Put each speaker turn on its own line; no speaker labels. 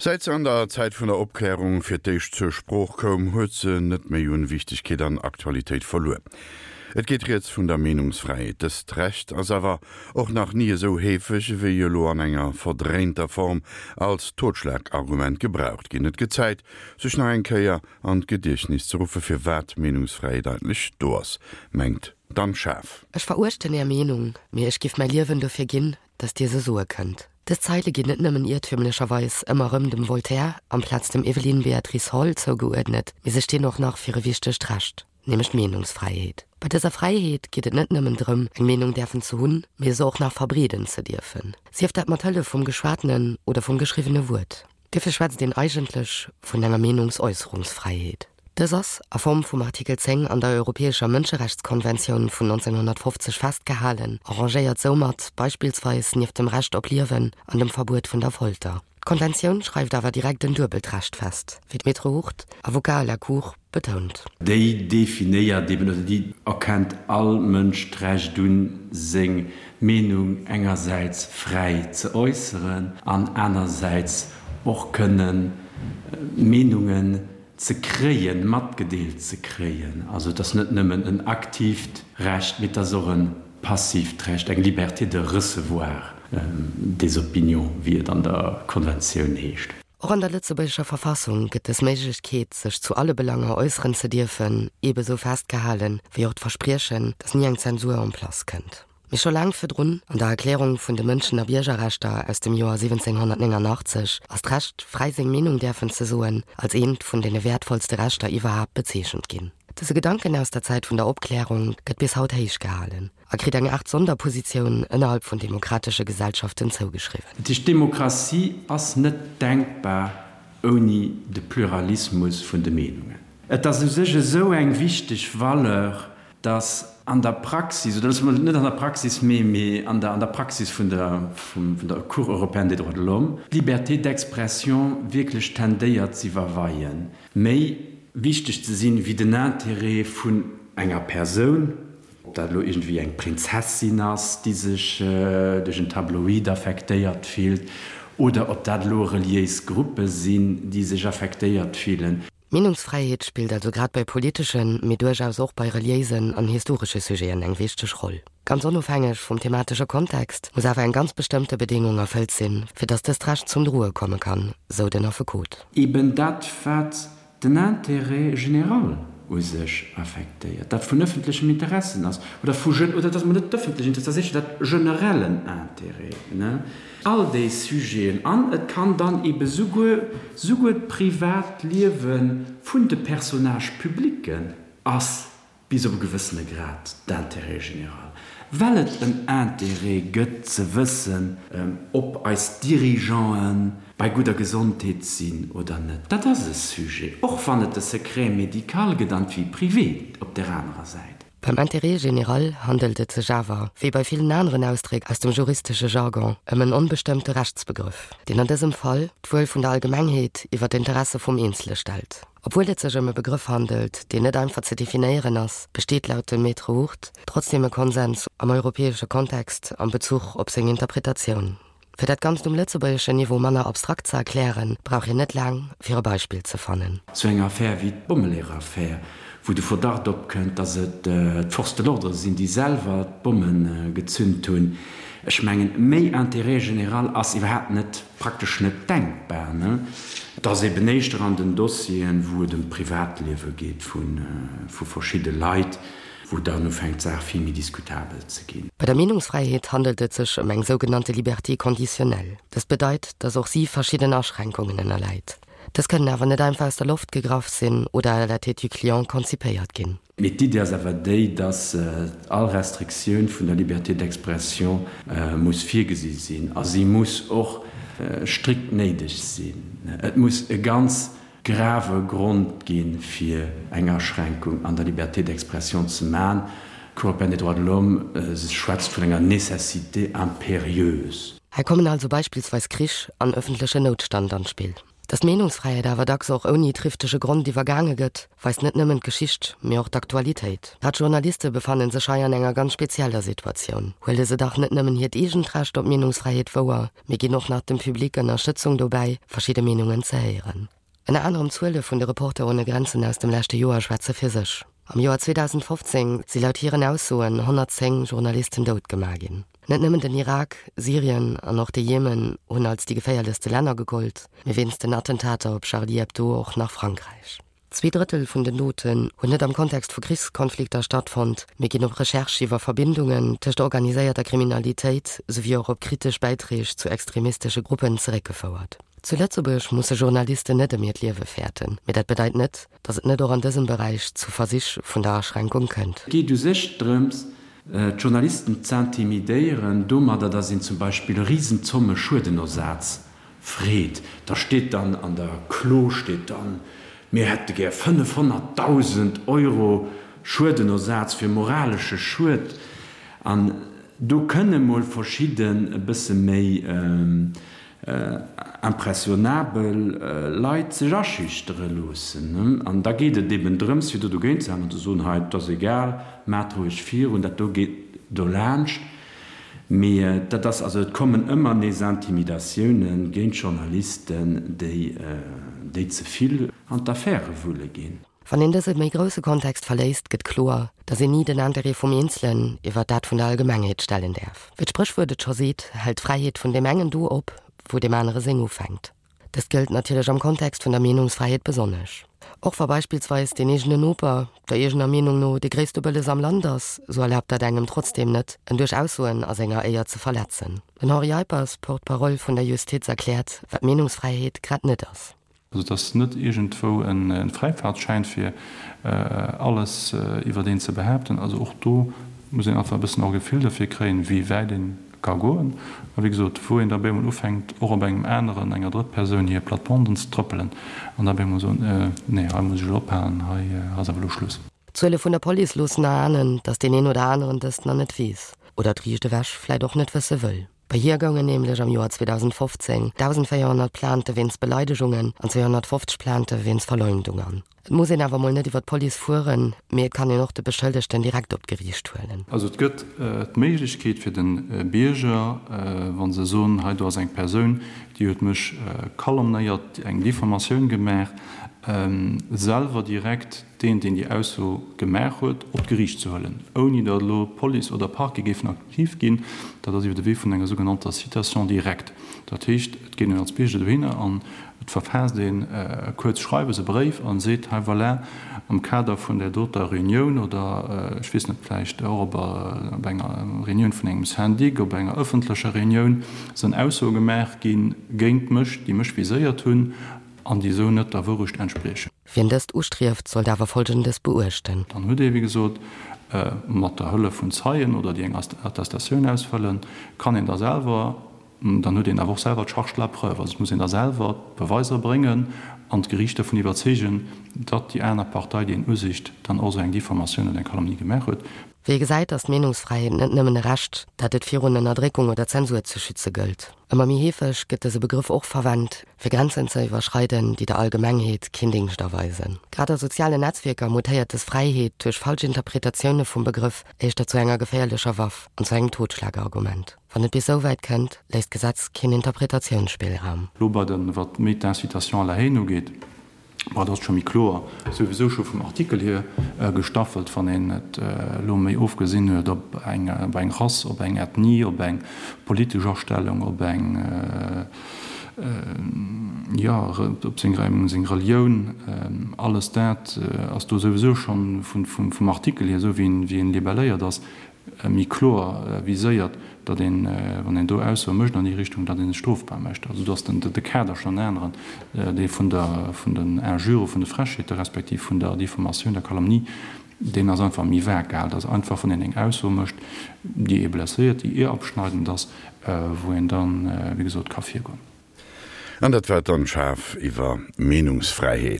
Säit se an der Zäit vun der Opklärung fir d'éischt zur Sprooch koum, huet se net méi un Wichtegkeet an Aktualitéit verluer. Et geet rieds vun der Meenungsfräiheet. Dëst Recht ass awer och nach ni esou heefeg ewéi elo an enger verdréinter Form als Totschlagargument gebraucht ginn. Et gëtt Zäit, sech nach eng Kéier an d'Gediechtnis ze ruffe firwat d'Meenungsfräiheet eigentlech do ass, mengt d'Anne Schaaf.
Ech veruechten Är Meenung, mee ech giff mäi Liewen dofir ginn, datt Dir se soe kënnt. Dës Zeile ginn net nëmmen iertümlecherweis ëmmer erëm dem Voltaire amplaz dem Evelyn Beatrice Hall zougeuerdnet, mee se stinn och nach fir e wichtegt Recht, nämlech d'Meenungsfräiheet. Bei dëser Fräiheet geet et net nëmmen drëm, eng Meenung däerfen ze hunn, mee se och nach verbreeden ze dierfen, sief dat mat Hëllef vum geschwatenen oder vum geschriwwene Wuert. Duerfir schwätzt een eigentlech vun enger Meenungsäusserungsfräiheet. Dës ass a Form vum Artikel 10 an der Europäescher Mënscherechtskonventioun vun 1950 festgehalen a rangéiert soumat beispillsweis nieft dem Recht op Liewen an dem Verbuet vun der Folter. D'Konventioun schreift awer direkt en duebelt Recht fest, wéi d'Maître Hurt, Avocat à la Cour, betount.
Déi definéiert eben, oder déi erkennt all Mënsch d'Recht un, seng Meenung engersäits fräi ze äusseren an anersäits och kënnen Meenungen ze kréien, matgedeelt ze kréien. Also et ass net nëmmen en aktiivt Recht, mee et ass och e passiivt Recht, eng Liberté de recevoir des opinions, wéi et an der Konventioun heescht.
Och an der lëtzebuergescher Verfassung gëtt dës Méiglechkeet, sech zu alle Belanger äusseren ze dierfen, eebesou festgehalen, wéi och d'Verspriechen, datt ni eng Zensur en place kënnt. Mee scho laang virdrun, an der Erklärung vun de Mënschen a Biergerrechter aus dem Joer 1789, ass d'Recht, fräi seng Meenung däerfen ze soen, als eent vun deene wäertvollste Rechter iwwerhaapt bezeechent ginn. Dëse Gedanken aus der Zäit vun der Opklärung gëtt bis haut héich gehalen. A kritt eng Aart Sonderpositioun ënnerhalb vun demokratesche Gesellschaften zougeschriwwen.
Dat heescht, d'Demokratie ass net denkbar ouni de Pluralismus vun de Meenungen. Et ass u sech esou eng wichteg Valeur, datt an der Praxis, oder loosse mer net an der Praxis, mee mee an der an der Praxis vun der vun der Cour européenne des droits de l'homme, d'Liberté d'expression wierklech tendéiert z'iwwerweien, méi wichteg ze sinn wéi den Intérêt vun enger Persoun, Ob dat elo iergendwéi eng Prinzessin ass, déi sech duerch en Tabloid affektéiert fillt, oder ob dat elo reliéis Gruppe sinn, déi sech affektéiert fillen.
D'Meenungsfräiheet spillt also grad bei politeschen, mee duerchaus och bei reliéisen an historesche Sujeten eng wichteg Roll. Ganz onofhängeg vum thematesche Kontext muss awer eng ganz bestëmmte Bedéngung erfëllt sinn, fir datt dëst Recht zum Droe komme kann, sou den Affekot.
Eben dat, wat den Intérêt général u sech affektéiert, dat vun öffentlechem Interessen ass, oder vu, oder dat ass emol net d'öffentlech Interesse, dat ass éischter dat generellen Intérêt, ne, all déi Sujeten. An et kann dann ebe souguer, souguer d'Privatliewe vun de Personnage-publicken ass bis op e gewëssene Grad d'Intérêt général, well et en Intérêt gëtt ze wëssen, ob eis Dirigeanten bei gudder Gesondheet sinn oder net. Dat ass e Sujet, och wann et de Secret médical gëtt an d'Vie privée op där anerer Säit.
Beim Intérêt général handelt et sech awer, wéi bei villen aneren Ausdréck aus dem juristesche Jargon, ëm en onbestëmmte Rechtsbegrëff, deen an dësem Fall d'Wuel vun der Allgemengheet iwwer d'Interesse vum Eenzele stellt. Obwuel et sech ëm e Begrëff handelt, deen net einfach ze definéieren ass, besteet laut dem Maître Hurt trotzdeem e Konsens am europäesche Kontext am Bezuch op seng Interpretatioun. Fir dat Ganzt um lëtzebuergeschen Niveau manner abstrakt ze erklären, brauch een net laang, fir e Beispill ze fannen.
Sou eng Affär wéi d'Bommeleeër-Affär, wou de Verdacht opkënnt, datt et d'Forces de l'ordre sinn, déi selwer d'Bomme gezünt hunn, ech mengen, méi Intérêt général ass iwwerhaapt net Praktesch net denkbar, ne? Et ass eben éischter an den Dossieren, wou et ëm d'Privatliewe geet vu verschidde Leit, wou dann ufänkt d'Saach vill méi diskutabel ze ginn.
Bei der Meenungsfräiheet handelt et sech ëm eng sougenannte Liberté conditionnelle. Dëst bedeit, datt och si verschidden Aschränkungen ënnerläit. Dës kënnen awer net einfach aus der Loft gegraff sinn oder à la tête du client konzipéiert ginn.
Mee d'Iddi ass awer déi, dass all Restriktioun vun der Liberté d'expression muss virgesi sinn a si muss och strikt néideg sinn. Et muss e ganz grave Grond gi fir eng Aschränkung an der Liberté d'expression ze man. D'Cour européenne des droits de l'homme schwätzt vun enger Nécessité impérieuse.
Hei kommen also beispillsweis Krich an öffentlechen Noutstand an d'Spill. Datt d'Meenungsfräiheet awer dacks och ouni trifftege Grond iwwergaange gëtt, weist net nëmmen d'Geschicht, mee och d'Aktualitéit. Grad Journaliste befanne sech hei an enger ganz spezieller Situatioun. Huele se dach net nëmmen hiert eegent Recht op Meenungsfräiheet wouer, mee ginn och nach dem Public Ënnerstëtzung dobäi, verschidde Meenungen ze héieren. Ënner anerem d'Zuele vun de Reporter ohne Grenzen aus dem leschte Joer schwätze fir sech. Am Joer 2015 si laut hiren Aussoen 110 Journalisten dout gemaach ginn. Net nëmmen den Irak, Syrien an och de Jemen hunn als déi geféierlechste Länner gegollt, mee wéinst den Attentater op Charlie Hebdo och nach Frankräich. Zweedrëttel vun den Doten hunn net am Kontext vu Krichskonflikter stattfonnt, mee ginn op Recherche iwwer Verbindungen tëscht organiséierter Kriminalitéit souwéi och op kritesch Bäitreeg zu extremistesche Gruppen zeréckgefouert. Zu Lëtzebuerg musse Journalisten net ëm hiert Liewe fäerten, mee dat bedeit net, datt et net och an dësem Beräich zu Versich vun der Aschränkung kënnt.
Et geet u sech drëms, d'Journalisten z'intimidéieren domadder, datt een zum Beispill Risenzomme Schuedenersaz freet. Da steet dann an der Klo steet dann, mir hätte gär 500.000 Euro Schuedenersaz fir moralesche Schued. An do kënne mol verschidden e bësse méi impressionabel Leit sech aschüchtere loossen. An da geet et eben drëms, fir do dogéint ze halen an ze soen, hei, et ass egal, maacht roueg virun, dat do geet dolaanscht. Mee dat ass, also et kommen ëmmer nees Intimidatioune géint Journalisten, déi, déi ze vill an d'Affäre wulle ginn.
Wann een dëse méi grousse Kontext verléisst, gëtt kloer, datt een ni den Interêt vum Eenzelen iwwer dat vun der Allgemengheet stellen däerf. Wéi d'Spréchwuert et scho seet, hält d'Fräiheet vun deem engen do op, wou deem anere seng ufänkt. Dëst gëllt natierlech am Kontext vun der Meenungsfräiheet besonnesch. Och wa beispillsweis deen eegene Noper der eegener Meenung no dee gréisste Bëlles am Land ass, sou erlaabt dat engem trotzdeem net, en duerch Aussoen a senger Éier ze verletzen. Den Henri Eippers, Porte-parole vun der Justiz, erkläert, wat Meenungsfräiheet grad net ass.
Also et ass net iergendwou e Fräifaartschäin fir alles iwwert een ze behaapten. Also och do muss een einfach e bëssen och e Gefill derfir kréien, wéi wäit ee ka goen. A wéi gesot, wou een da op eemol ufänkt, och op engem aneren, enger Drëttpersoun hir Plattebanden ze trëppelen an da op eemol soen, Nee, hei muss ech elo ophalen, hei ass awer elo Schluss.
D'Zuele vun der Police loossen erahnen, datt deen een oder aneren dëst nach net weess oder et riicht ewech vläit och net wësse wëll. Bei hir goungen nämlech am Joer 2015 1.400 Plainte wéinst Beleidegungen an 250 Plainte wéinst Verleumdung an. Et muss een awer mol net iwwer d'Police fueren, mee et kann een och de Beschëllegten direkt op d'Geriicht huelen.
Also et gëtt d'Méiglechkeet fir de Bierger, wa se soen, hei do ass eng Persoun, déi huet mech calomnéiert, eng Diffamatioun gemaach, selwer direkt deen, deen déi Ausso gemaach huet, op d'Geriicht ze huelen, ouni datt elo Police oder Parquet géifen aktiv ginn. Dat ass iwwer de Wee vun enger sougenannter Citation directe. Dat heescht, et geet een als Bierger dohinner an et verfaasst een e kuerzt Schreiwes, e Bréif, a seet, hei voilà, am Kader vun där doter Reunioun oder, ech weess net, vläicht och op enger Reunioun vun engem Syndic, op enger ëffentlecher Reunioun, sënn Aussoe gemaach gi géint mech, déi mech viséiert hunn an déi esou net der Wourecht entspriechen.
Wien dëst ustrieft, sollt awer Folgendes beuechten.
Dann huet ee, wéi gesot, mat der Hëllef vun Zeien oder déi eng Attestatioun ausfëllen, kann een da selwer, dann huet een awer och selwer d'Charge de la preuve, also et muss een da selwer d'Beweiser bréngen an d'Geriicht dervun iwwerzeegen, datt déi aner Partei, déi een usicht, dann och esou eng Diffamatioun oder eng Calomnie gemaach huet.
Wéi ee gesäit, ass d'Meenungsfräiheet net nëmmen e Recht, dat et virun Ënnerdréckung oder Zensur ze schütze gëllt. Ëmmer méi heefeg gëtt dëse Begrëff och verwent, fir Grenzen ze iwwerschreiden, déi der Allgemengheet keen Dingscht erweisen. Grad a sozialen Netzwierker mutéiert dës Fräiheet duerch falsch Interpretatioune vum Begrëff éischter zu enger geféierlecher Waff an zu engem Totschlagargument. Wann et bis esou wäit kënnt, léisst d'Gesetz keen Interpretatiounsspillraum.
Lo bei den, wat méi d'Incitation à la haine ugeet, Bon, dat ass scho méi kloer, souwisou scho vum Artikel hier gestaffelt, wann een et elo méi ofgesinn huet op eng, op eng Rass, op eng Ethnie, op eng politesch Astellung, op eng, jo, op seng, seng Relioun, alles dat ass do souwisou schonn vum Artikel hier, esou wéi en, wéi en libelléiert ass, méi kloer viséiert, datt een, wann een do Aussoe mécht an déi Richtung, datt ee sech strofbar mécht. Also do ass den de Kader schonn en aneren, dee vun der, vun den Injure, vun de Frechheete respektiv vun der Diffamatioun, der Calomnie, deen ass einfach méi vag gehalen. Dat ass einfach, wann een eng Ausso mécht, déi ee blesséiert, déi ehrabschneidend ass, wou een dann, wéi gesot, ka virgoen.
An dat war d'Anne Schaaf iwwer Meenungsfräiheet.